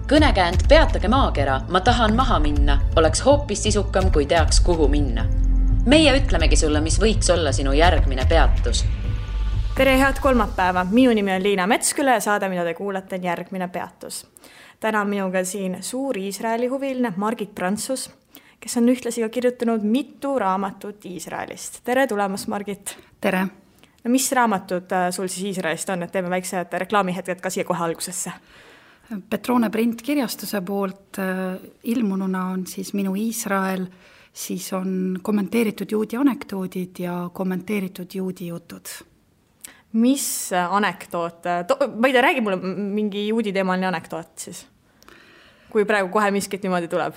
Kõnekäänd Peatage maakera, ma tahan maha minna, oleks hoopis sisukam, kui teaks, kuhu minna. Meie ütlemegi sulle, mis võiks olla sinu järgmine peatus. Tere, head kolmapäeva. Minu nimi on Liina Metsküla ja saade, mida te kuulete, on järgmine peatus. Täna on minuga siin suur Iisraeli huviline Margit Prantsus, kes on ühtlasi ka kirjutanud mitu raamatut Iisraelist. Tere tulemast, Margit. Tere. No, mis raamatud sul siis Iisraelist on, et teeme väiksed reklaamihetked ka siia kohe algusesse? Petrone printkirjastuse poolt ilmununa on siis Minu Iisrael, siis on kommenteeritud juudi anekdoodid ja kommenteeritud juudi jutud. Mis anekdoot? Ma ei tea, räägi mulle mingi juudi teemaline anekdoot siis, kui praegu kohe miskit niimoodi tuleb.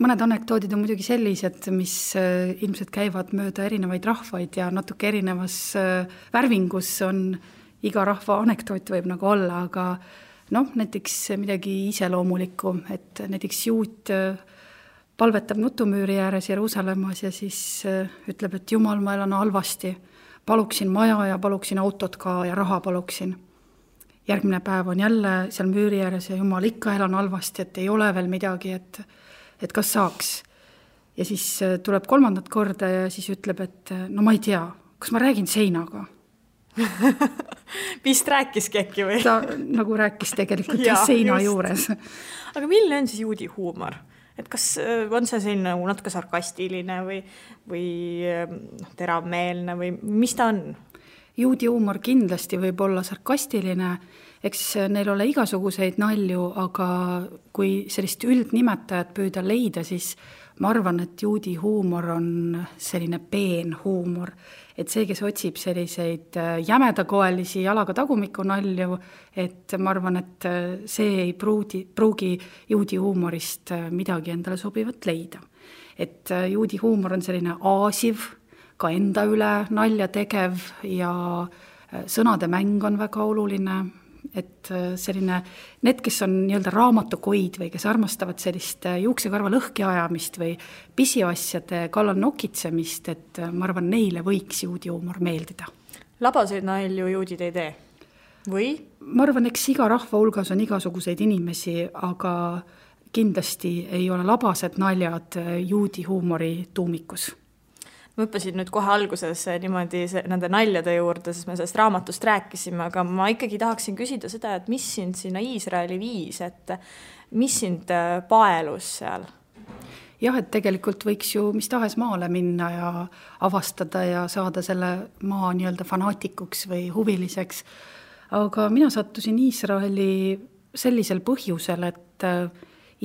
Mõned anekdoodid on muidugi sellised, mis ilmselt käivad mööda erinevaid rahvaid ja natuke erinevas värvingus on iga rahva anekdoot võib nagu olla, aga näiteks midagi iseloomulikku, et näiteks juut palvetab nutumüüri ääres Jeruusalemmas ja siis ütleb, et Jumal, ma elan halvasti, paluksin maja ja paluksin autot ka ja raha paluksin. Järgmine päev on jälle seal müüri ääres ja Jumal, ikka elan halvasti, et ei ole veel midagi, et kas saaks. Ja siis tuleb kolmandat korda ja siis ütleb, et no ma ei tea, kas ma räägin seinaga. Vist rääkiski äkki või? Ta nagu rääkis tegelikult seina juures. Aga milline on siis juudi huumor? Et kas on see selline natuke sarkastiline või teravmeelne või mis ta on? Juudi huumor kindlasti võib olla sarkastiline, eks neil ole igasuguseid nalju, aga kui sellist üldnimetajat püüda leida, siis ma arvan, et juudi huumor on selline peen huumor. Et see, kes otsib selliseid jämedakoelisi jalaga tagumiku nalju, et ma arvan, et see ei pruugi juudi huumorist midagi endale sobivat leida. Et juudi huumor on selline aasiv, ka enda üle nalja tegev ja sõnade mäng on väga oluline. Et selline, need, kes on nii-öelda raamatukoid või kes armastavad sellist juuksekarva lõhki ajamist või pisiasjade kallal nokitsemist, et ma arvan, neile võiks juudi huumor meeldida. Labaseid nalju juudid ei tee? Või? Ma arvan, eks iga rahva hulgas on igasuguseid inimesi, aga kindlasti ei ole labased naljad juudi huumori tuumikus. Ma õppasin nüüd kohe alguses niimoodi nende naljade juurde, sest me sellest raamatust rääkisime, aga ma ikkagi tahaksin küsida seda, et mis sind sinna Iisraeli viis, et mis sind paelus seal? Jah, et tegelikult võiks ju mis tahes maale minna ja avastada ja saada selle maa nii-öelda fanaatikuks või huviliseks. Aga mina sattusin Iisraeli sellisel põhjusel, et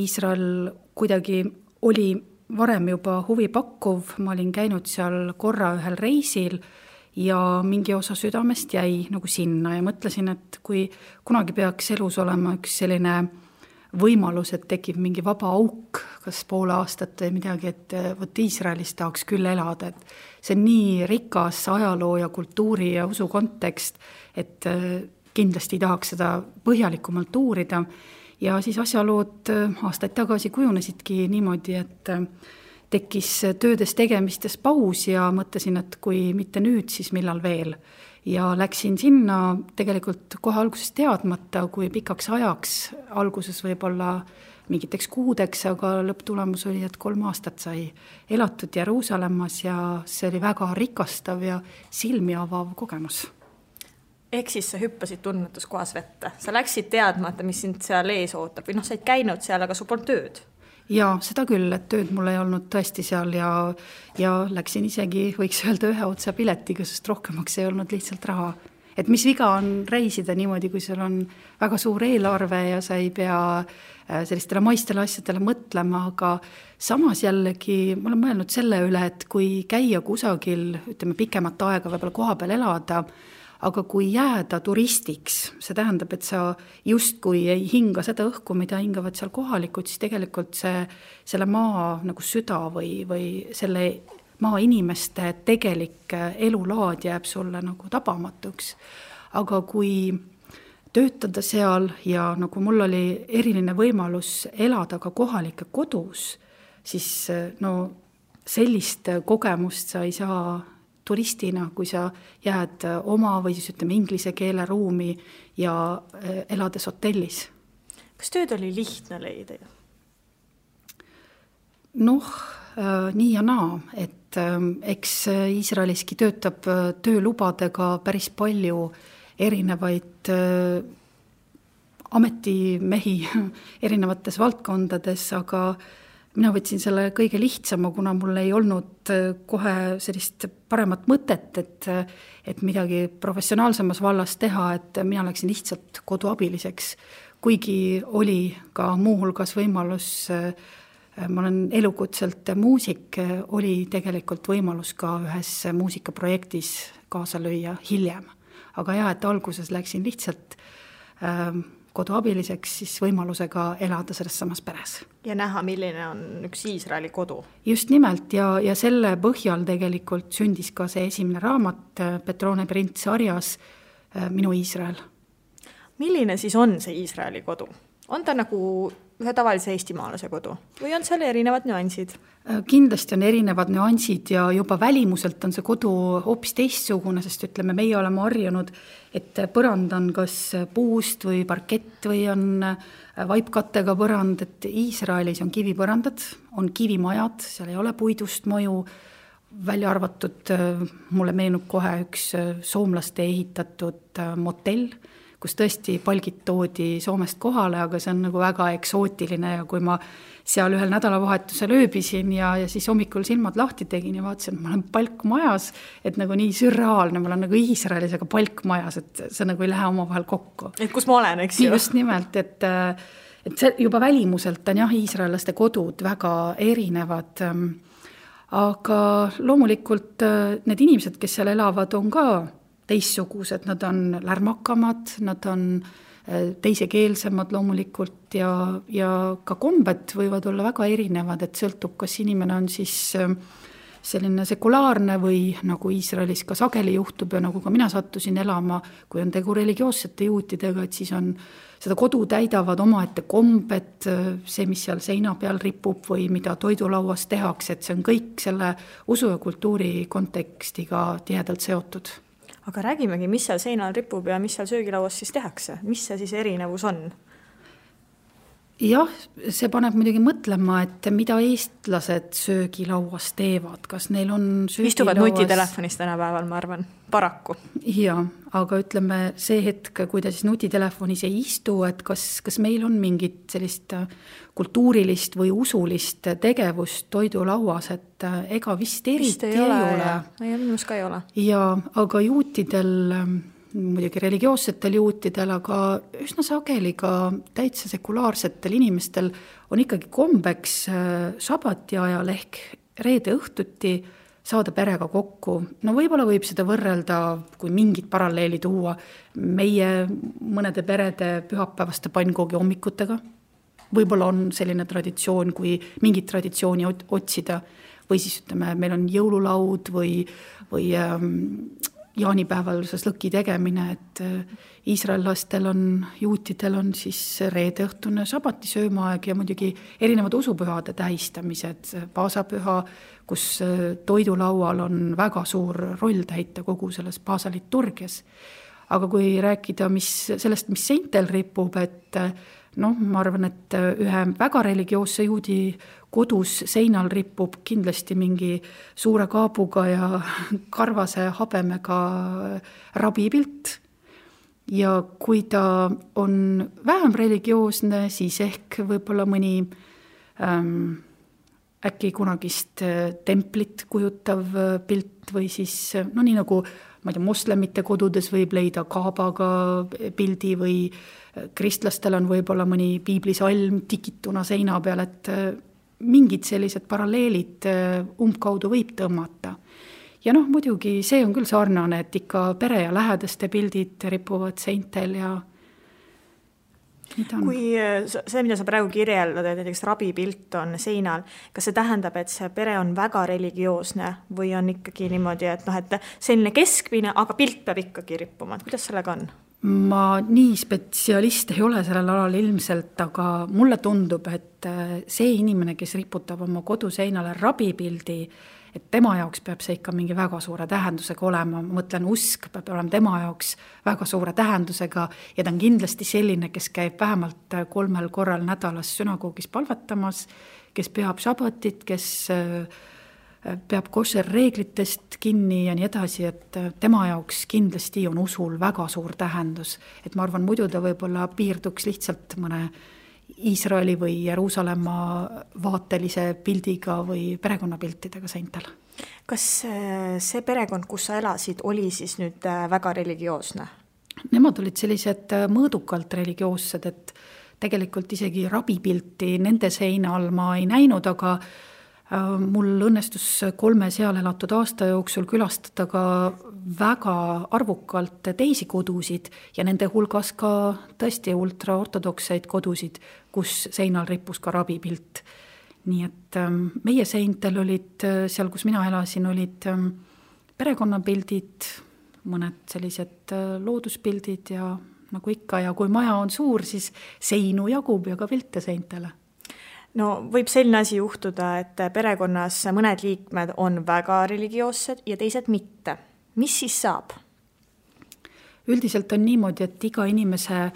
Iisrael kuidagi oli varem juba huvi pakkuv, ma olin käinud seal korra ühel reisil ja mingi osa südamest jäi nagu sinna ja mõtlesin, et kui kunagi peaks elus olema üks selline võimalus, et tekib mingi vaba auk, kas poole aastat või midagi, et võt Iisraelis tahaks küll elada, et see on nii rikas ajaloo ja kultuuri ja usu kontekst, et kindlasti tahaks seda põhjalikumalt uurida. Ja siis asjalood aastaid tagasi kujunesidki niimoodi, et tekkis töödes tegemistes paus ja mõtlesin, et kui mitte nüüd, siis millal veel. Ja läksin sinna tegelikult kohe alguses teadmata, kui pikaks ajaks, alguses võib-olla mingiteks kuudeks, aga lõpptulemus oli, et 3 aastat sai elatud Jeruusalemmas ja see oli väga rikastav ja silmi avav kogemus. Ehk siis sa hüppasid tunnetuskohas vette. Sa läksid teadmata, mis sind seal ees ootab. Või sa ei käinud seal, aga sul polnud tööd. Ja seda küll, et tööd mul ei olnud tõesti seal ja läksin isegi, võiks öelda, ühe otsa piletiga, sest rohkemaks ei olnud lihtsalt raha. Et mis viga on reisida niimoodi, kui sul on väga suur eelarve ja sa ei pea sellistele maistele asjadele mõtlema, aga samas jällegi ma olen mõelnud selle üle, et kui käia kusagil, ütleme pikemat aega võib-olla koha peal elada, aga kui jääda turistiks, see tähendab, et sa justkui ei hinga seda õhku, mida hingavad seal kohalikud, siis tegelikult selle maa nagu süda või selle maa inimeste tegelik elulaad jääb sulle nagu tabamatuks. Aga kui töötada seal ja nagu mul oli eriline võimalus elada ka kohalike kodus, siis sellist kogemust sa ei saa turistina, kui sa jääd oma või siis ütleme inglise keele ruumi ja elades hotellis. Kas tööd oli lihtne leida? Noh, nii ja naa, et eks Iisraeliski töötab töölubadega päris palju erinevaid ametimehi erinevates valdkondades, aga mina võtsin selle kõige lihtsama, kuna mul ei olnud kohe sellist paremat mõtet, et midagi professionaalsemas vallas teha, et mina läksin lihtsalt koduabiliseks, kuigi oli ka muuhulgas võimalus, ma olen elukutselt muusik, oli tegelikult võimalus ka ühes muusikaprojektis kaasa lüüa hiljem. Aga jah, et alguses läksin lihtsalt koduabiliseks, siis võimalusega elada selles samas peres. Ja näha, milline on üks Iisraeli kodu. Just nimelt ja selle põhjal tegelikult sündis ka see esimene raamat Petrone Prints sarjas Minu Iisrael. Milline siis on see Iisraeli kodu? On ta nagu ühe tavalise eestimaalase kodu või on seal erinevad nüansid? Kindlasti on erinevad nüansid ja juba välimuselt on see kodu hoopis teistsugune, sest ütleme, meie oleme harjunud, et põrand on kas puust või parkett või on vaipkattega põrand, et Iisraelis on kivipõrandad, on kivimajad, seal ei ole puidust mõju, välja arvatud, mulle meenub kohe üks soomlaste ehitatud motell, kus tõesti palgid toodi Soomest kohale, aga see on nagu väga eksootiline ja kui ma seal ühel nädalavahetusel ööbisin ja siis hommikul silmad lahti tegin ja vaatasin, et ma olen palkmajas, et nagu nii sürreaalne, ma olen nagu Iisraelis, aga palkmajas, et see nagu ei lähe omavahel kokku. Et kus ma olen, eks ju? Just nimelt, et see juba välimuselt on jah, iisraellaste kodud väga erinevad, aga loomulikult need inimesed, kes seal elavad, on ka teissugused, nad on lärmakamad, nad on teisekeelsemad loomulikult ja ka kombed võivad olla väga erinevad, et sõltub, kas inimene on siis selline sekulaarne või nagu Iisraelis ka sageli juhtub ja nagu ka mina sattusin elama, kui on tegu religioossete juutidega, et siis on seda kodu täidavad omaette kombed, see, mis seal seina peal ripub või mida toidulauas tehakse, et see on kõik selle usu ja kultuuri kontekstiga tihedalt seotud. Aga räägimegi, mis seal seinal ripub ja mis seal söögilauas siis tehakse? Mis see siis erinevus on? Jah, see paneb muidugi mõtlema, et mida eestlased söögilauas teevad, kas neil on söögilauas... Istuvad nutitelefonis tänapäeval, ma arvan, paraku. Ja, aga ütleme see hetk, kui ta siis nutitelefonis ei istu, et kas meil on mingit sellist kultuurilist või usulist tegevust toidulauas, et ega vist eriti ei ole. Ei, minus ka ei ole. Ja, aga juutidel... muidugi religioossetel juutidel, aga üsna sageli ka täitsa sekulaarsetel inimestel on ikkagi kombeks sabati ajal ehk reede õhtuti saada perega kokku. No võib-olla võib seda võrrelda, kui mingid paralleeli tuua, meie mõnede perede pühapäevaste pannkoogi hommikutega. Võib-olla on selline traditsioon, kui mingit traditsiooni otsida või siis ütleme, meil on jõululaud või jaanipäeval lõki tegemine, et iisraellastel on, juutidel on siis reedeõhtune sabati söömaaeg ja muidugi erinevad usupühade tähistamised, paasapüha, kus toidulaual on väga suur roll täita kogu selles paasaliturgias. Aga kui rääkida sellest, mis seintel ripub, et ma arvan, et ühe väga religioosse juudi kodus seinal ripub kindlasti mingi suure kaabuga ja karvase habemega rabipilt. Ja kui ta on vähem religioosne, siis ehk võib-olla mõni äkki kunagist templit kujutav pilt või siis, nii nagu ma ei tea, moslemite kodudes võib leida kaabaga pildi või kristlastel on võib-olla mõni piiblisalm tikituna seina peal, et mingid sellised paralleelid umbkaudu võib tõmmata. Ja muidugi see on küll sarnane, et ikka pere ja lähedaste pildid ripuvad seintel ja kui see, mida sa praegu kirjeldad, et näiteks rabipilt on seinal, kas see tähendab, et see pere on väga religioosne või on ikkagi niimoodi, et selline keskmine, aga pilt peab ikkagi rippuma, et kuidas sellega on? Ma nii spetsialist ei ole sellel alal ilmselt, aga mulle tundub, et see inimene, kes riputab oma koduseinale rabipildi, et tema jaoks peab see ikka mingi väga suure tähendusega olema, ma mõtlen, usk peab olema tema jaoks väga suure tähendusega ja ta on kindlasti selline, kes käib vähemalt 3 korral nädalas sünagoogis palvetamas, kes peab šabatit, kes peab košer reeglitest kinni ja nii edasi, et tema jaoks kindlasti on usul väga suur tähendus. Et ma arvan, muidu ta võib-olla piirduks lihtsalt mõne Iisraeli või Jeruusalemma vaatelise pildiga või perekonnapiltidega seintel. Kas see perekond, kus sa elasid, oli siis nüüd väga religioosne? Nemad olid sellised mõõdukalt religioossed, et tegelikult isegi rabipilti nende seina all ma ei näinud, aga mul õnnestus 3 seal elatud aasta jooksul külastada ka väga arvukalt teisi kodusid ja nende hulgas ka tõesti ultraortodokseid kodusid, kus seinal rippus ka rabipilt. Nii et meie seintel olid, seal kus mina elasin, olid perekonnapildid, mõned sellised looduspildid ja nagu ikka, ja kui maja on suur, siis seinu jagub ja ka pilte seintele. No võib selline asi juhtuda, et perekonnas mõned liikmed on väga religioossed ja teised mitte. Mis siis saab? Üldiselt on niimoodi, et iga inimese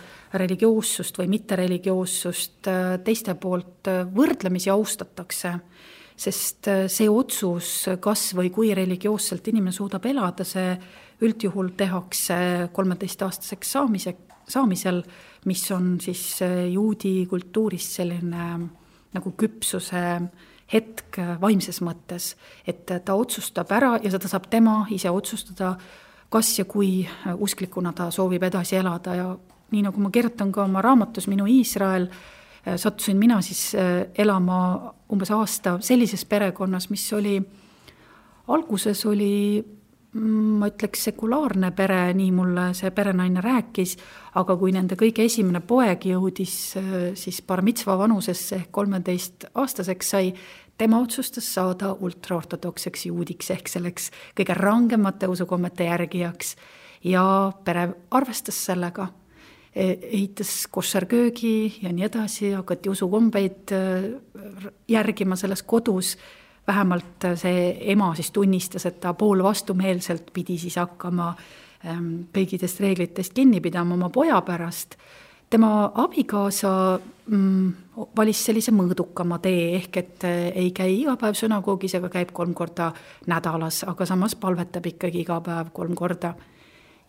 religioossust või mittereligioossust teiste poolt võrdlemisi austatakse, sest see otsus, kas või kui religioosselt inimene suudab elada, see üldjuhul tehakse 13-aastaseks saamisel, mis on siis juudi kultuuris selline nagu küpsuse hetk vaimses mõttes, et ta otsustab ära ja seda saab tema ise otsustada, kas ja kui usklikuna ta soovib edasi elada ja nii nagu ma kirjutan ka oma raamatus Minu Iisrael, sattusin mina siis elama umbes aasta sellises perekonnas, mis oli, alguses oli, ma ütleks, sekulaarne pere, nii mulle see perenaine rääkis, aga kui nende kõige esimene poeg jõudis siis bar mitzva vanusesse ehk 13-aastaseks sai, tema otsustas saada ultraortodokseks juudiks ehk selleks kõige rangemate usukommete järgijaks ja pere arvestas sellega, ehitas koššerköögi ja nii edasi, hakati usukombeid järgima selles kodus. Vähemalt see ema siis tunnistas, et ta pool vastumeelselt pidi siis hakkama kõigidest reeglitest kinni pidama oma poja pärast. Tema abikaasa valis sellise mõõdukama tee ehk, et ei käi iga päev sünagoogis, aga käib 3 korda nädalas, aga samas palvetab ikkagi iga päev 3 korda.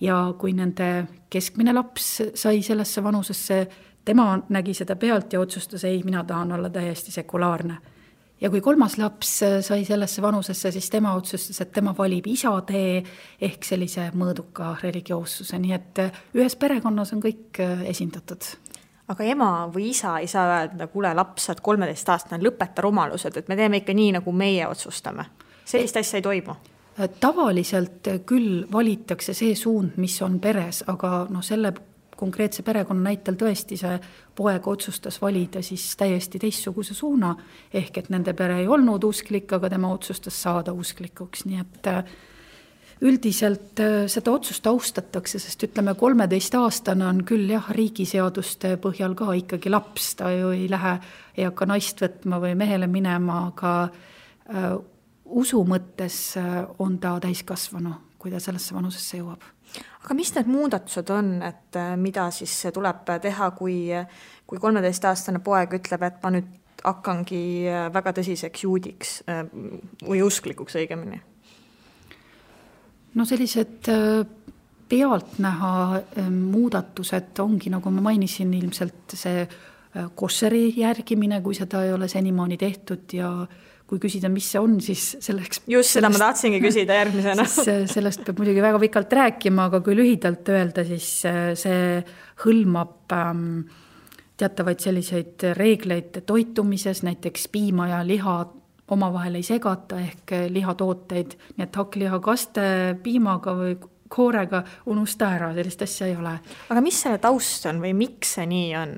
Ja kui nende keskmine laps sai sellesse vanusesse, tema nägi seda pealt ja otsustas, ei, mina tahan olla täiesti sekulaarne. Ja kui 3. laps sai sellesse vanusesse, siis tema otsustas, et tema valib isa tee ehk sellise mõõduka religioossuse. Nii et ühes perekonnas on kõik esindatud. Aga ema või isa ei saa öelda, kuule laps, et 13-aastane lõpeta rumalused, et me teeme ikka nii, nagu meie otsustame. Sellist asja ei toimu. Tavaliselt küll valitakse see suund, mis on peres, aga selle konkreetse perekonna näitel tõesti see poeg otsustas valida siis täiesti teistsuguse suuna, ehk et nende pere ei olnud usklik, aga tema otsustas saada usklikuks, nii et üldiselt seda otsust austatakse, sest ütleme 13-aastane on küll jah, riigiseaduste põhjal ka ikkagi laps, ta ju ei lähe, ei hakka naist võtma või mehele minema, aga usu mõttes on ta täiskasvanu, kui ta sellesse vanusesse jõuab. Aga mis need muudatused on, et mida siis tuleb teha, kui 13-aastane poeg ütleb, et ma nüüd hakkangi väga tõsiseks juudiks või usklikuks õigemini? No sellised pealtnäha muudatused ongi, nagu ma mainisin, ilmselt see koššeri järgimine, kui seda ei ole senimaani tehtud ja kui küsida, mis see on, siis selleks... Just seda ma tahtsingi küsida järgmisena. Sellest peab muidugi väga pikalt rääkima, aga kui lühidalt öelda, siis see hõlmab teatavaid selliseid reegleid toitumises, näiteks piima ja liha omavahel ei segata ehk lihatooteid, nii et hakkliha kaste piimaga või koorega unusta ära, sellist asja ei ole. Aga mis selle taust on või miks see nii on?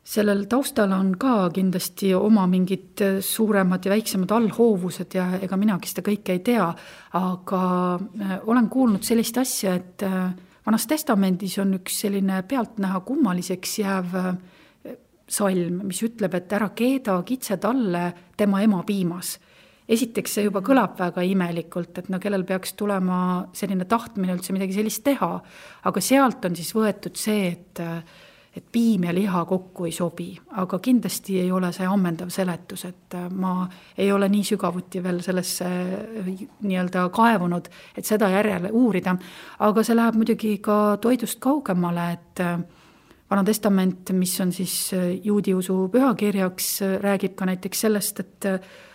Sellel taustal on ka kindlasti oma mingid suuremad ja väiksemad allhoovused ja ega minagi seda kõike ei tea, aga olen kuulnud sellist asja, et Vanas Testamendis on üks selline pealtnäha kummaliseks jääv salm, mis ütleb, et ära keeda kitse talle tema ema piimas. esiteks see juba kõlab väga imelikult, et no kellel peaks tulema selline tahtmine üldse midagi sellist teha, aga sealt on siis võetud see, et piim ja liha kokku ei sobi, aga kindlasti ei ole see ammendav seletus, et ma ei ole nii sügavuti veel sellesse nii-öelda kaevunud, et seda järjele uurida, aga see läheb muidugi ka toidust kaugemale, et Vana Testament, mis on siis juudi usu pühakirjaks, räägib ka näiteks sellest, et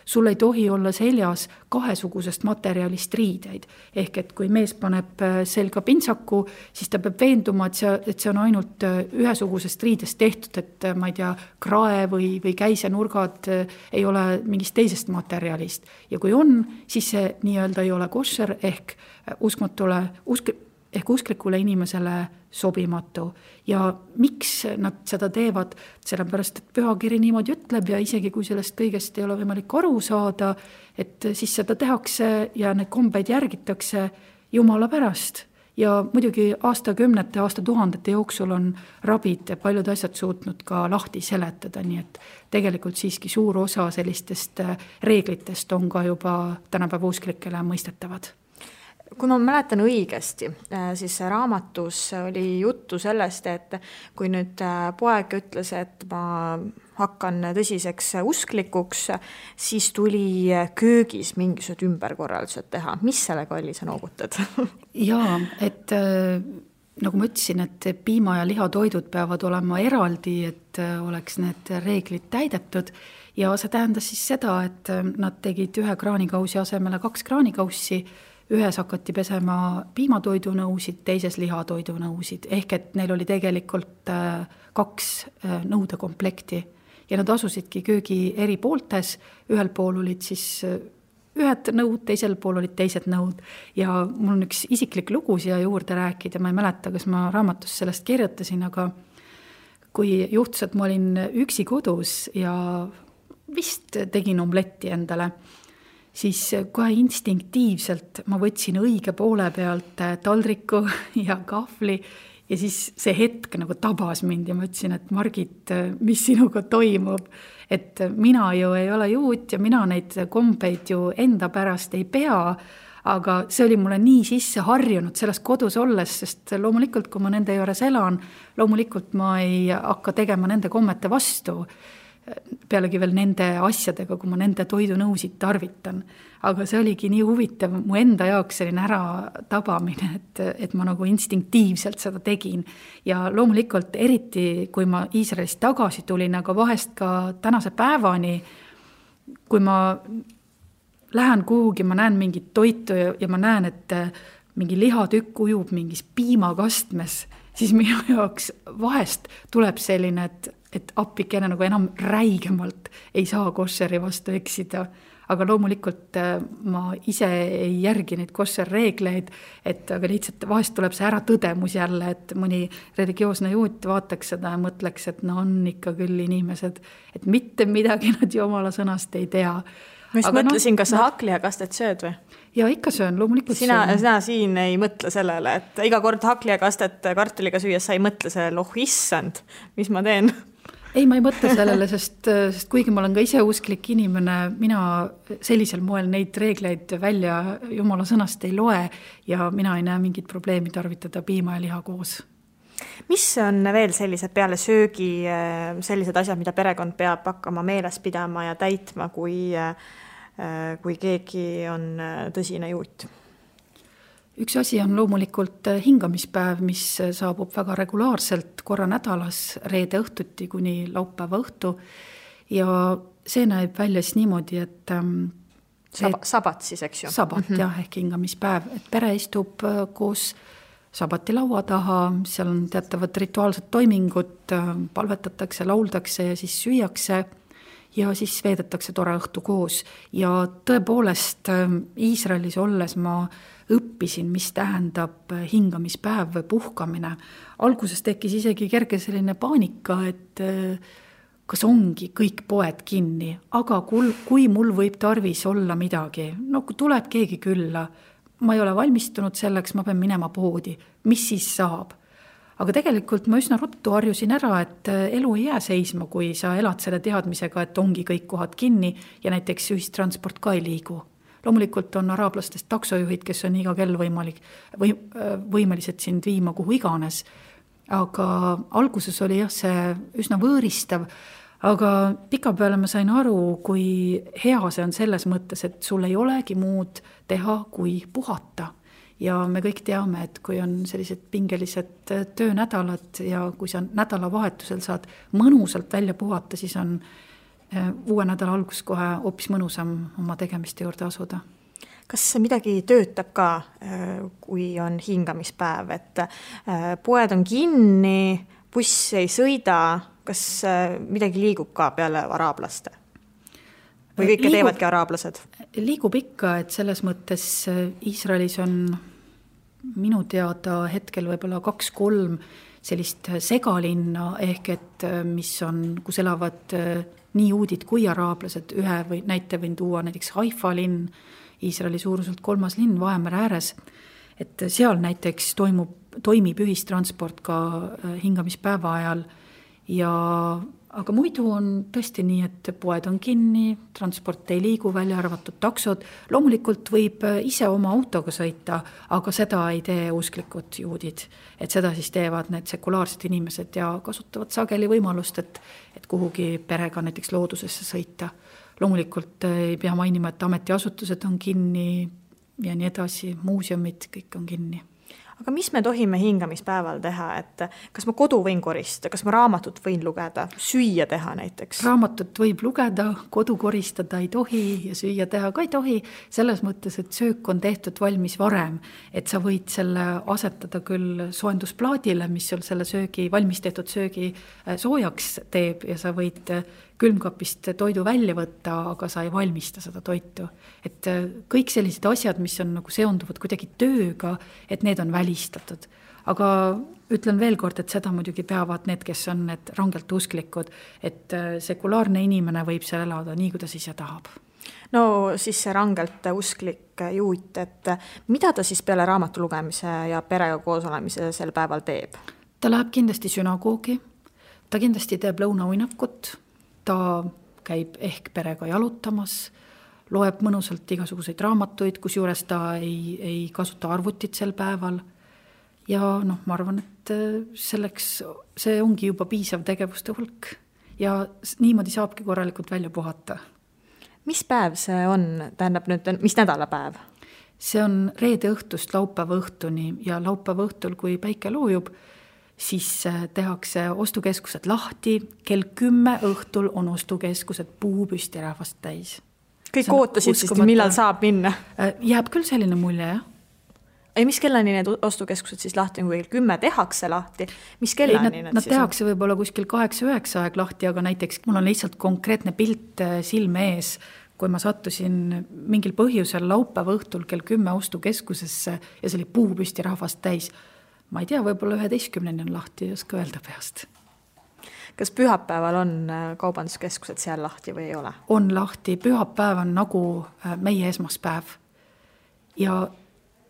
sul ei tohi olla seljas kahesugusest materjalist riideid. Ehk et kui mees paneb selga pintsaku, siis ta peab veenduma, et see on ainult ühesugusest riidest tehtud, et ma ei tea, krae või käisenurgad ei ole mingist teisest materjalist. Ja kui on, siis see nii-öelda ei ole koššer ehk usklikule inimesele sobimatu. Ja miks nad seda teevad? Sellepärast, et pühakiri niimoodi ütleb ja isegi kui sellest kõigest ei ole võimalik aru saada, et siis seda tehakse ja need kombeid järgitakse Jumala pärast. Ja muidugi aastakümnete, aastatuhandete jooksul on rabid ja paljud asjad suutnud ka lahti seletada, nii et tegelikult siiski suur osa sellistest reeglitest on ka juba tänapäeva usklikele mõistetavad. Kui ma mäletan õigesti, siis raamatus oli juttu sellest, et kui nüüd poeg ütles, et ma hakkan tõsiseks usklikuks, siis tuli köögis mingisugused ümberkorraldused teha. Mis sellega oli, sa noogutad? Jaa, et nagu ma ütlesin, et piima- ja lihatoidud peavad olema eraldi, et oleks need reeglid täidetud. Ja see tähendas siis seda, et nad tegid ühe kraanikausi asemele 2 kraanikaussi, ühes hakati pesema piimatoidunõusid, teises lihatoidunõusid, ehk et neil oli tegelikult 2 nõudekomplekti ja nad asusidki köögi eri pooltes, ühel pool olid siis ühed nõud, teisel pool olid teised nõud ja mul on üks isiklik lugu siia juurde rääkida, ma ei mäleta, kas ma raamatus sellest kirjutasin, aga kui juhtus, et ma olin üksi kodus ja vist tegin omletti endale, siis kohe instinktiivselt ma võtsin õige poole pealt taldriku ja kahvli ja siis see hetk nagu tabas mind ja ma ütlesin, et Margit, mis sinuga toimub, et mina ju ei ole juut ja mina neid kombeid ju enda pärast ei pea, aga see oli mulle nii sisse harjunud selles kodus olles, sest loomulikult, kui ma nende juures elan, loomulikult ma ei hakka tegema nende kommete vastu, pealegi veel nende asjadega, kui ma nende toidunõusid tarvitan. Aga see oligi nii huvitav mu enda jaoks selline ära tabamine, et ma nagu instinktiivselt seda tegin. Ja loomulikult eriti, kui ma Iisraelist tagasi tulin, aga vahest ka tänase päevani, kui ma lähen kuhugi, ma näen mingit toitu ja ma näen, et mingi lihatükk ujub mingis piimakastmes, siis minu jaoks vahest tuleb selline, et appikene nagu enam räigemalt ei saa koššeri vastu eksida. Aga loomulikult ma ise ei järgi neid koššerreegleid, aga lihtsalt vahest tuleb see ära tõdemus jälle, et mõni religioosne juut vaataks seda ja mõtleks, et no on ikka küll inimesed, et mitte midagi nad Jumala sõnast ei tea. Ma just mõtlesin, kas sa haklijakastet sööd või? Ja ikka söön, loomulikult sina siin ei mõtle sellele, et iga kord haklijakastet kartuliga süües sa ei mõtle sellele, issand, mis ma teen? Ei, ma ei mõtle sellele, sest kuigi ma olen ka ise usklik inimene, mina sellisel moel neid reegleid välja Jumala sõnast ei loe ja mina ei näe mingit probleemi tarvitada piima ja liha koos. Mis on veel sellised peale söögi sellised asjad, mida perekond peab hakkama meeles pidama ja täitma, kui keegi on tõsine juut? Üks asi on loomulikult hingamispäev, mis saabub väga regulaarselt korra nädalas reede õhtuti kuni laupäeva õhtu ja see näeb välja siis niimoodi, et sabat siis, eks ju? Sabat, jah, ehk hingamispäev, et pere istub koos sabati laua taha, seal on teatavad rituaalsed toimingud, palvetatakse, lauldakse ja siis süüakse ja siis veedetakse tore õhtu koos ja tõepoolest Iisraelis olles ma õppisin, mis tähendab hingamispäev või puhkamine. Alguses tekkis isegi kerge selline paanika, et kas ongi kõik poed kinni, aga kui mul võib tarvis olla midagi, no kui tuleb keegi külla, ma ei ole valmistunud selleks, ma pean minema poodi, mis siis saab? aga tegelikult ma üsna ruttu harjusin ära, et elu ei jää seisma, kui sa elad selle teadmisega, et ongi kõik kohad kinni ja näiteks ühistransport ka ei liigu. Loomulikult on araablastest taksojuhid, kes on iga kell võimelised sind viima kuhu iganes. Aga alguses oli see üsna võõristav, aga pikapeale ma sain aru, kui hea see on selles mõttes, et sul ei olegi muud teha kui puhata. Ja me kõik teame, et kui on sellised pingelised töönädalad ja kui sa nädalavahetusel saad mõnusalt välja puhata, siis on uue nädala algus kohe hoopis mõnusam oma tegemiste juurde asuda. Kas midagi töötab ka, kui on hingamispäev, et poed on kinni, buss ei sõida, kas midagi liigub ka peale araablaste? Või kõike teevadki araablased? Liigub ikka, et selles mõttes Iisraelis on minu teada hetkel võib-olla 2-3 sellist segalinna, ehk et mis on, kus elavad nii juudid kui araablased. Ühe või näite võin tuua näiteks Haifa linn, Iisraeli suuruselt 3. linn Vahemere ääres, et seal näiteks toimib ühistransport ka hingamispäeva ajal aga muidu on tõesti nii, et poed on kinni, transport ei liigu, välja arvatud taksod. Loomulikult võib ise oma autoga sõita, aga seda ei tee usklikud juudid. Et seda siis teevad need sekulaarsed inimesed ja kasutavad sageli võimalust, et kuhugi perega näiteks loodusesse sõita. Loomulikult ei pea mainima, et ametiasutused on kinni ja nii edasi, muuseumid, kõik on kinni. Aga mis me tohime hingamispäeval teha, et kas ma kodu võin koristada, kas ma raamatut võin lugeda, süüa teha näiteks? Raamatut võib lugeda, kodu koristada ei tohi ja süüa teha ka ei tohi, selles mõttes, et söök on tehtud valmis varem, et sa võid selle asetada küll soojendusplaadile, mis sul selle valmis tehtud söögi soojaks teeb ja sa võid külmkapist toidu välja võtta, aga sa ei valmista seda toitu. Et kõik sellised asjad, mis on nagu seonduvad kuidagi tööga, et need on välistatud. Aga ütlen veel kord, et seda muidugi peavad need, kes on need rangelt usklikud, et sekulaarne inimene võib seal elada nii, kuidas ise tahab. No siis see rangelt usklik juut, et mida ta siis peale raamatu lugemise ja perega koos olemise sel päeval teeb? Ta läheb kindlasti sünagoogi, ta kindlasti teeb lõunauinakut, ta käib ehk perega jalutamas, loeb mõnusalt igasuguseid raamatuid, kus juures ta ei kasuta arvutit sel päeval. Ja ma arvan, et selleks see ongi juba piisav tegevuste hulk ja niimoodi saabki korralikult välja puhata. Mis päev see on? Tähendab nüüd, mis nädalapäev? See on reede õhtust laupäeva õhtuni ja laupäeva õhtul, kui päike loojub, siis tehakse ostukeskused lahti, kell 10 õhtul on ostukeskused puupüsti rahvast täis. Kõik ootasid siis, millal saab minna? Jääb küll selline mulje, jah. Ei, mis kellani need ostukeskused siis lahti, kui 10 tehakse lahti? Mis kellani nad tehakse võib-olla kuskil 8-9 aeg lahti, aga näiteks mul on lihtsalt konkreetne pilt silme ees, kui ma sattusin mingil põhjusel laupäeva õhtul kell 10 ostukeskusesse ja see oli puupüsti rahvast täis. Ma ei tea, võib-olla 11 on lahti, ei oska öelda peast. Kas pühapäeval on kaubanduskeskused seal lahti või ei ole? On lahti, pühapäev on nagu meie esmaspäev. Ja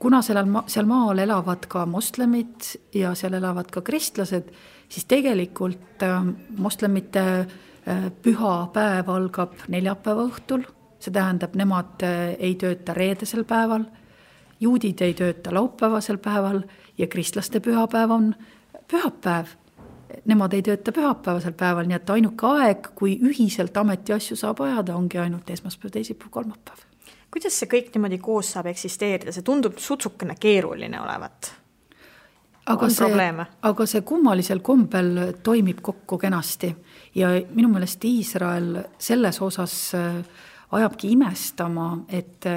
kuna seal maal elavad ka moslemid ja seal elavad ka kristlased, siis tegelikult moslemite pühapäev algab neljapäeva õhtul. See tähendab, nemad ei tööta reedesel päeval, juudid ei tööta laupäevasel päeval ja kristlaste pühapäev on pühapäev. Nemad ei tööta pühapäevasel päeval, nii et ainuke aeg, kui ühiselt ametiasju saab ajada, ongi ainult esmaspäev, teisipäev, kolmapäev. Kuidas see kõik niimoodi koos saab eksisteerida? See tundub sutsukene keeruline olevat. Aga see kummalisel kombel toimib kokku kenasti ja minu meelest Iisrael selles osas ajabki imestama, et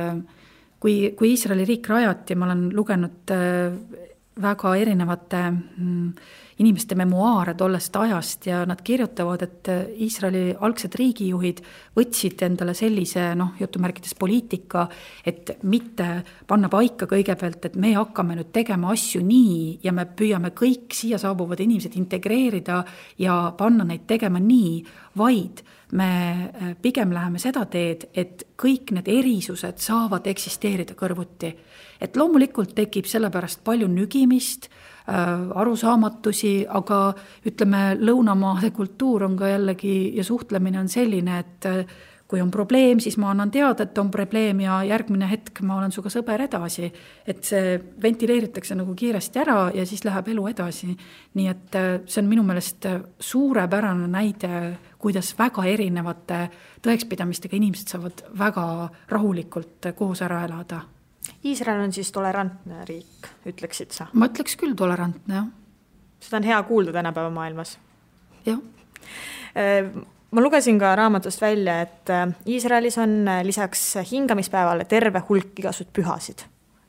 kui Iisraeli riik rajati, ma olen lugenud väga erinevate inimeste memuaare tollest ajast ja nad kirjutavad, et Iisraeli algsed riigijuhid võtsid endale sellise, jutumärkides poliitika, et mitte panna paika kõigepealt, et me hakkame nüüd tegema asju nii ja me püüame kõik siia saabuvad inimesed integreerida ja panna neid tegema nii, vaid me pigem läheme seda teed, et kõik need erisused saavad eksisteerida kõrvuti. Et loomulikult tekib sellepärast palju nügimist, arusaamatusi, aga ütleme, lõunamaade kultuur on ka jällegi ja suhtlemine on selline, et kui on probleem, siis ma annan teada, et on probleem ja järgmine hetk ma olen suga sõber edasi. Et see ventileeritakse nagu kiiresti ära ja siis läheb elu edasi. Nii et see on minu meelest suurepärane näide, kuidas väga erinevate tõekspidamistega inimesed saavad väga rahulikult koos ära elada. Iisrael on siis tolerantne riik, ütleksid sa? Ma ütleks küll tolerantne, jah. Seda on hea kuulda tänapäeva maailmas. Jah. Ma lugesin ka raamatust välja, et Iisraelis on lisaks hingamispäevale terve hulk igasugused pühasid.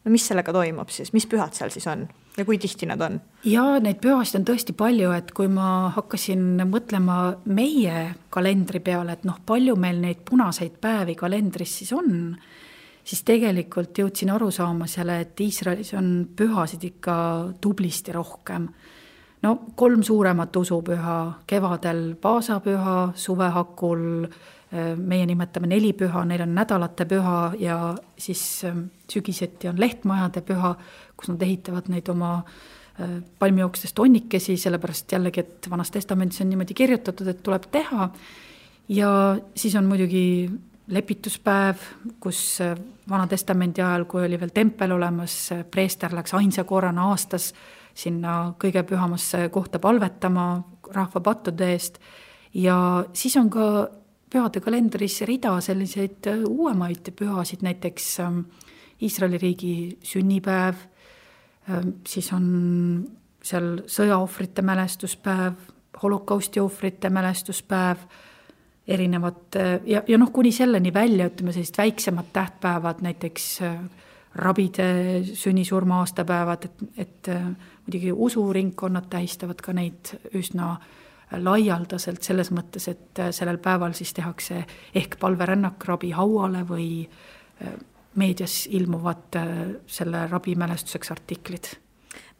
No mis sellega toimub siis? Mis pühad seal siis on? Ja kui tihti nad on? Ja neid pühasid on tõesti palju, et kui ma hakkasin mõtlema meie kalendri peale, et palju meil neid punaseid päevi kalendris siis on, siis tegelikult jõudsin aru saama selle, et Iisraelis on pühasid ikka tublisti rohkem. 3 suuremat usupüha, kevadel paasapüha, suvehakul, meie nimetame 4 püha, neil on nädalate püha ja siis sügiseti on lehtmajade püha, kus nad ehitavad neid oma palmiooksest onnikesi, sellepärast jällegi, et Vanas Testamendis on niimoodi kirjutatud, et tuleb teha. Ja siis on muidugi lepituspäev, kus Vana Testamendi ajal, kui oli veel tempel olemas, preester läks ainsa korrana aastas sinna kõige pühamasse kohta palvetama rahva pattude eest. Ja siis on ka pühade kalendris rida selliseid uuemaid pühasid, näiteks Iisraeli riigi sünnipäev, siis on seal sõjaohvrite mälestuspäev, holokausti ohvrite mälestuspäev, erinevad ja kuni selleni välja, ütleme sellist väiksemad tähtpäevad, näiteks rabide sünnisurma aastapäevad, et muidugi usuringkonnad tähistavad ka neid üsna laialdaselt selles mõttes, et sellel päeval siis tehakse ehk palverännak rabi hauale või meedias ilmuvad selle rabi mälestuseks artiklid.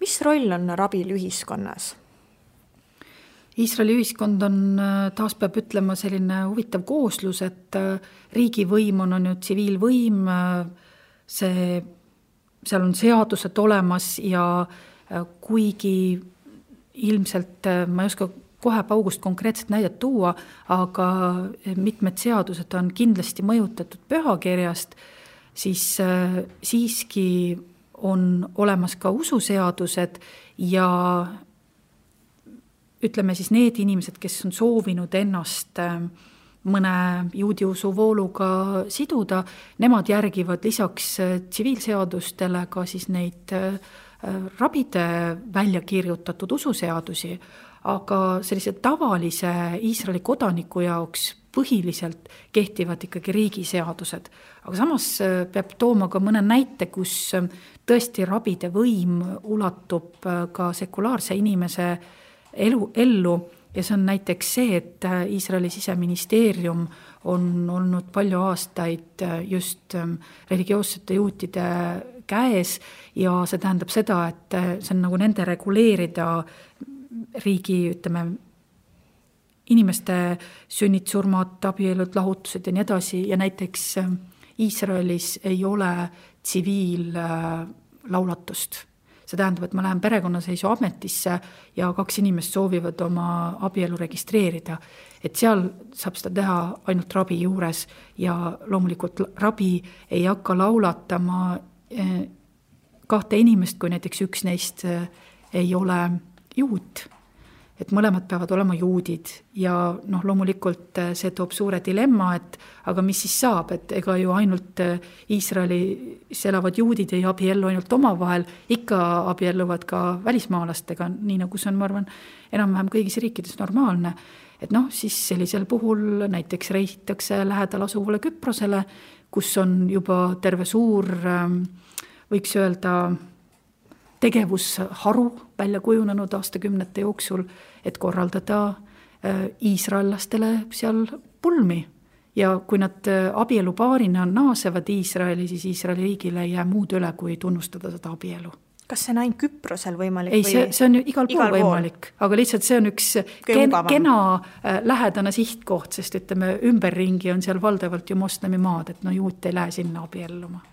Mis roll on rabil ühiskonnas? Iisraeli ühiskond on, taas peab ütlema, selline huvitav kooslus, et riigivõim on ju tsiviilvõim, seal on seadused olemas ja kuigi ilmselt ma ei oska kohe paugust konkreetset näidet tuua, aga mitmed seadused on kindlasti mõjutatud pühakirjast, siis siiski on olemas ka ususeadused ja ütleme siis need inimesed, kes on soovinud ennast mõne juudi usuvooluga siduda, nemad järgivad lisaks tsiviilseadustele ka siis neid rabide välja kirjutatud ususeadusi, aga sellise tavalise Iisraeli kodaniku jaoks põhiliselt kehtivad ikkagi riigiseadused. Aga samas peab tooma ka mõne näite, kus tõesti rabide võim ulatub ka sekulaarse inimese ellu. Ja see on näiteks see, et Iisraeli siseministeerium on olnud palju aastaid just religioossete juutide käes ja see tähendab seda, et see on nagu nende reguleerida riigi, ütleme, inimeste sünnid, surmad, abielud, lahutused ja nii edasi ja näiteks Iisraelis ei ole tsiviillaulatust. See tähendab, et ma lähen perekonnaseisu ametisse ja 2 inimest soovivad oma abielu registreerida. Et seal saab seda teha ainult rabi juures ja loomulikult rabi ei hakka laulatama 2 inimest, kui näiteks üks neist ei ole juut. Et mõlemad peavad olema juudid ja loomulikult see toob suure dilemma, et aga mis siis saab, et ega ju ainult Iisraelis elavad juudid ei abiellu ainult omavahel, ikka abielluvad ka välismaalastega, nii nagu see on, ma arvan, enam-vähem kõigis riikides normaalne. Et siis sellisel puhul näiteks reisitakse lähedal asuvale Küprosele, kus on juba terve suur, võiks öelda, tegevusharu välja kujunenud aastakümnete jooksul, et korraldada iisraellastele seal pulmi. Ja kui nad abielupaarina naasevad Iisraeli, siis Iisraeli riigile ei jää muud üle, kui tunnustada seda abielu. Kas see on ainult Küprosel võimalik? Ei, see on ju igal pool võimalik, aga lihtsalt see on üks kena lähedane sihtkoht, sest ütleme, ümberringi on seal valdavalt ju moslemi maad, et juut ei lähe sinna abielluma.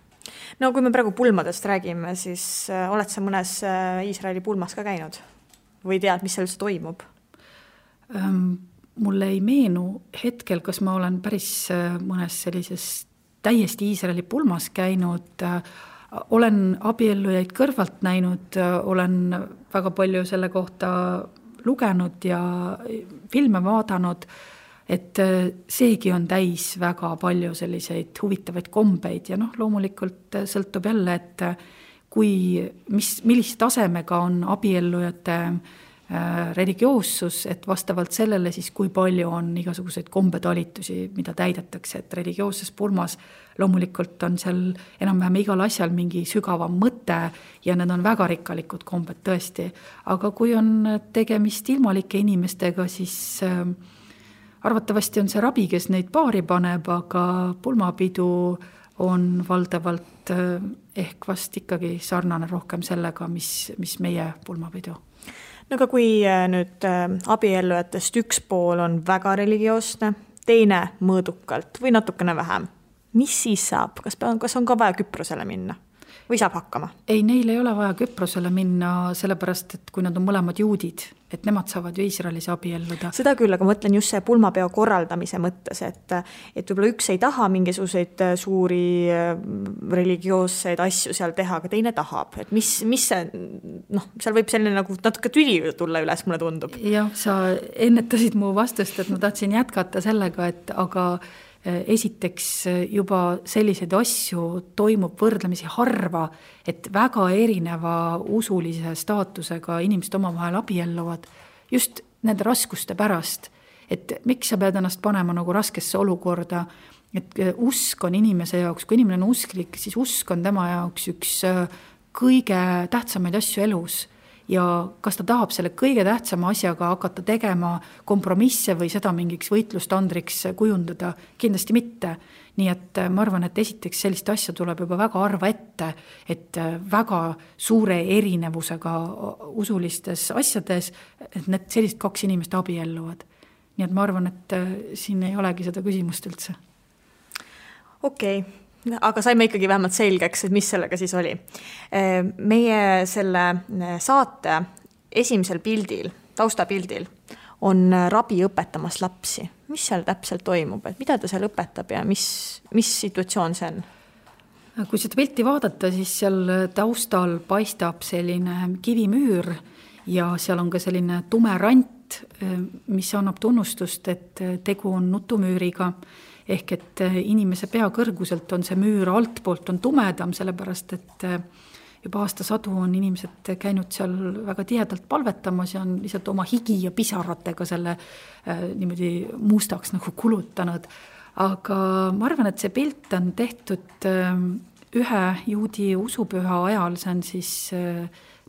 No kui me praegu pulmadest räägime, siis oled sa mõnes Iisraeli pulmas ka käinud? Või tead, mis seal üldse toimub? Mulle ei meenu hetkel, kas ma olen päris mõnes sellises täiesti Iisraeli pulmas käinud. Olen abiellujaid kõrvalt näinud, olen väga palju selle kohta lugenud ja filme vaadanud, et seegi on täis väga palju selliseid huvitavaid kombeid ja loomulikult sõltub jälle, et millise tasemega on abiellujate religioossus, et vastavalt sellele siis kui palju on igasuguseid kombetalitusi, mida täidetakse, et religioosses pulmas loomulikult on seal enam-vähem igal asjal mingi sügavam mõte ja need on väga rikkalikud kombed tõesti, aga kui on tegemist ilmalike inimestega, siis arvatavasti on see rabi, kes neid paari paneb, aga pulmapidu on valdavalt ehk vast ikkagi sarnane rohkem sellega, mis meie pulmapidu. No aga kui nüüd abiellujatest üks pool on väga religioosne, teine mõõdukalt või natukene vähem, mis siis saab? Kas on ka vaja Küprosele minna? Või saab hakkama? Ei, neil ei ole vaja Küprosele minna, sellepärast, et kui nad on mõlemad juudid, et nemad saavad ju Iisraelis abielluda. Seda küll, aga mõtlen just see pulmapeo korraldamise mõttes, et võib-olla üks ei taha mingisuguseid suuri religioosseid asju seal teha, aga teine tahab. Et mis see, seal võib selline nagu natuke tüli tulla üles, mulle tundub. Jah, sa ennetasid mu vastust, et ma tahtsin jätkata sellega, et aga esiteks juba selliseid asju toimub võrdlemisi harva, et väga erineva usulise staatusega inimesed omavahel abielluvad just nende raskuste pärast, et miks sa pead ennast panema nagu raskesse olukorda, et usk on inimese jaoks, kui inimene on usklik, siis usk on tema jaoks üks kõige tähtsamaid asju elus. Ja kas ta tahab selle kõige tähtsama asjaga hakata tegema kompromisse või seda mingiks võitlustandriks kujundada? Kindlasti mitte. Nii et ma arvan, et esiteks sellist asja tuleb juba väga harva ette, et väga suure erinevusega usulistes asjades, et need sellised kaks inimest abielluvad. Nii et ma arvan, et siin ei olegi seda küsimust üldse. Okei. Aga saime ikkagi vähemalt selgeks, et mis sellega siis oli. Meie selle saate esimesel pildil, taustapildil, on rabi õpetamas lapsi. Mis seal täpselt toimub? Et mida ta seal õpetab ja mis situatsioon see on? Kui seda pilti vaadata, siis seal taustal paistab selline kivimüür ja seal on ka selline tume rant, mis annab tunnustust, et tegu on nutumüüriga. Ehk et inimese pea kõrguselt on see müür altpoolt on tumedam, sellepärast et juba aastasadu on inimesed käinud seal väga tihedalt palvetamas ja on lihtsalt oma higi ja pisaratega selle niimoodi mustaks nagu kulutanud. Aga ma arvan, et see pilt on tehtud ühe juudi usupüha ajal, see on siis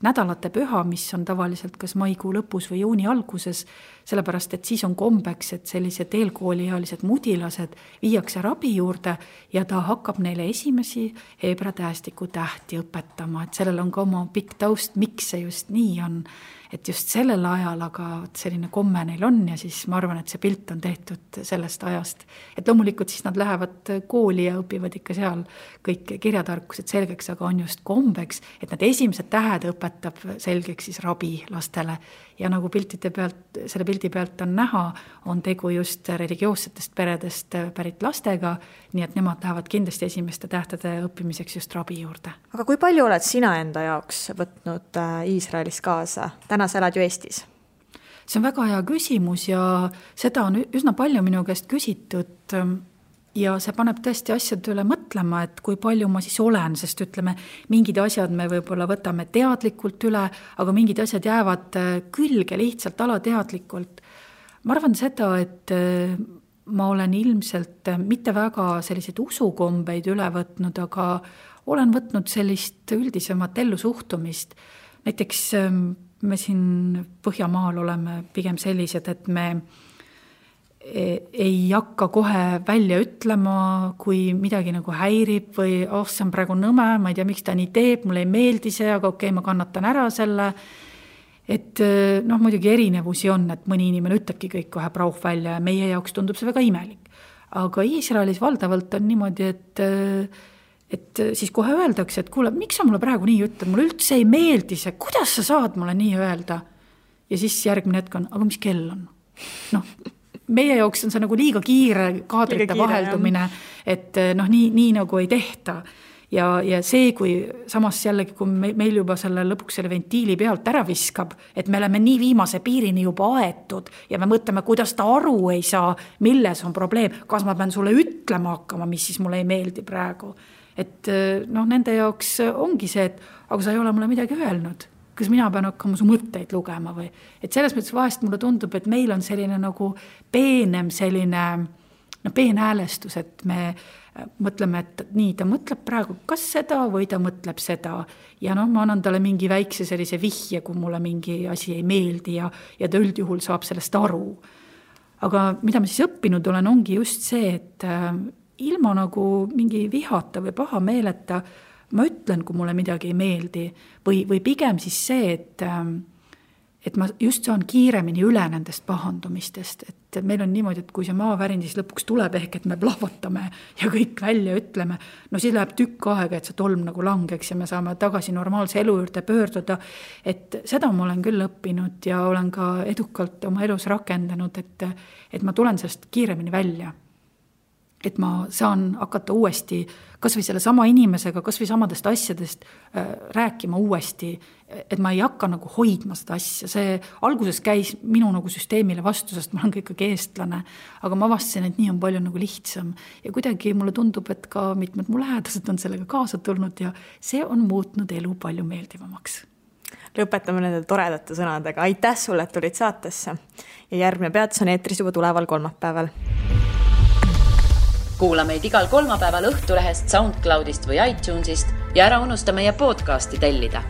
nädalate püha, mis on tavaliselt kas maikuu lõpus või juuni alguses, sellepärast, et siis on kombeks, et sellised eelkooliealised mudilased viiakse rabi juurde ja ta hakkab neile esimesi heebra tähestiku tähti õpetama, et sellel on ka oma pikk taust, miks see just nii on, et just sellel ajal, aga selline komme neil on ja siis ma arvan, et see pilt on tehtud sellest ajast. Et loomulikult siis nad lähevad kooli ja õpivad ikka seal kõik kirjatarkused selgeks, aga on just kombeks, et nad esimesed tähed õpetab selgeks siis rabi lastele. Ja nagu selle pildi pealt on näha, on tegu just religioossetest peredest pärit lastega, nii et nemad lähevad kindlasti esimeste tähtede õppimiseks just rabi juurde. Aga kui palju oled sina enda jaoks võtnud Iisraelis kaasa? Täna sa elad ju Eestis. See on väga hea küsimus ja seda on üsna palju minu käest küsitud ja see paneb tõesti asjad üle mõtlema, et kui palju ma siis olen, sest ütleme, mingid asjad me võib-olla võtame teadlikult üle, aga mingid asjad jäävad külge lihtsalt alateadlikult. Ma arvan seda, et ma olen ilmselt mitte väga selliseid usukombeid üle võtnud, aga olen võtnud sellist üldisemat ellusuhtumist. Näiteks me siin Põhjamaal oleme pigem sellised, et me ei hakka kohe välja ütlema, kui midagi nagu häirib või see on praegu nõme, ma ei tea, miks ta nii teeb, mulle ei meeldi see, aga okei, ma kannatan ära selle. Et muidugi erinevusi on, et mõni inimene ütlebki kõik kohe prauh välja ja meie jaoks tundub see väga imelik. Aga Iisraelis valdavalt on niimoodi, et siis kohe öeldakse, et kuule, miks sa mulle praegu nii ütled, mulle üldse ei meeldi see, kuidas sa saad mulle nii öelda? Ja siis järgmine hetk on, aga mis kell on? Noh, meie jaoks on see nagu liiga kiire kaadrite vaheldumine, et nii nagu ei tehta. Ja see, kui samas jällegi, kui meil juba selle lõpuks selle ventiili pealt ära viskab, et me oleme nii viimase piirini juba aetud ja me mõtleme, kuidas ta aru ei saa, milles on probleem, kas ma pean sulle ütlema hakkama, mis siis mulle ei meeldi praegu. Et nende jaoks ongi see, et aga sa ei ole mulle midagi öelnud, kas mina pean hakkama su mõtteid lugema või. Et selles mõttes vahest mulle tundub, et meil on selline nagu peenem selline peenhäälestus, et me mõtleme, et nii, ta mõtleb praegu kas seda või ta mõtleb seda ja ma annan talle mingi väikse sellise vihje, kui mulle mingi asi ei meeldi ja ta üldjuhul saab sellest aru. Aga mida ma siis õppinud olen, ongi just see, et ilma nagu mingi vihata või paha meeleta ma ütlen, kui mulle midagi ei meeldi või pigem siis see, et ma just saan kiiremini üle nendest pahandumistest, et meil on niimoodi, et kui see maavärin siis lõpuks tuleb ehk, et me plahvatame ja kõik välja ütleme, siis läheb tükk aega, et see tolm nagu langeks ja me saame tagasi normaalse elu juurde pöörduda, et seda ma olen küll õppinud ja olen ka edukalt oma elus rakendanud, et ma tulen sellest kiiremini välja. Et ma saan hakata uuesti, kas või selle sama inimesega, kas või samadest asjadest rääkima uuesti, et ma ei hakka nagu hoidma seda asja. See alguses käis minu nagu süsteemile vastu, sest ma olen ka ikkagi eestlane, aga ma avastasin, et nii on palju nagu lihtsam. Ja kuidagi mulle tundub, et ka mitmed mu lähedased on sellega kaasa tulnud ja see on muutnud elu palju meeldivamaks. Lõpetame nende toredate sõnadega. Aitäh sulle, et tulid saatesse. Ja järgmine peatus on eetris juba tuleval kolmapäeval. Kuula meid igal kolmapäeval Õhtulehest, SoundCloudist või iTunesist ja ära unusta meie podcasti tellida.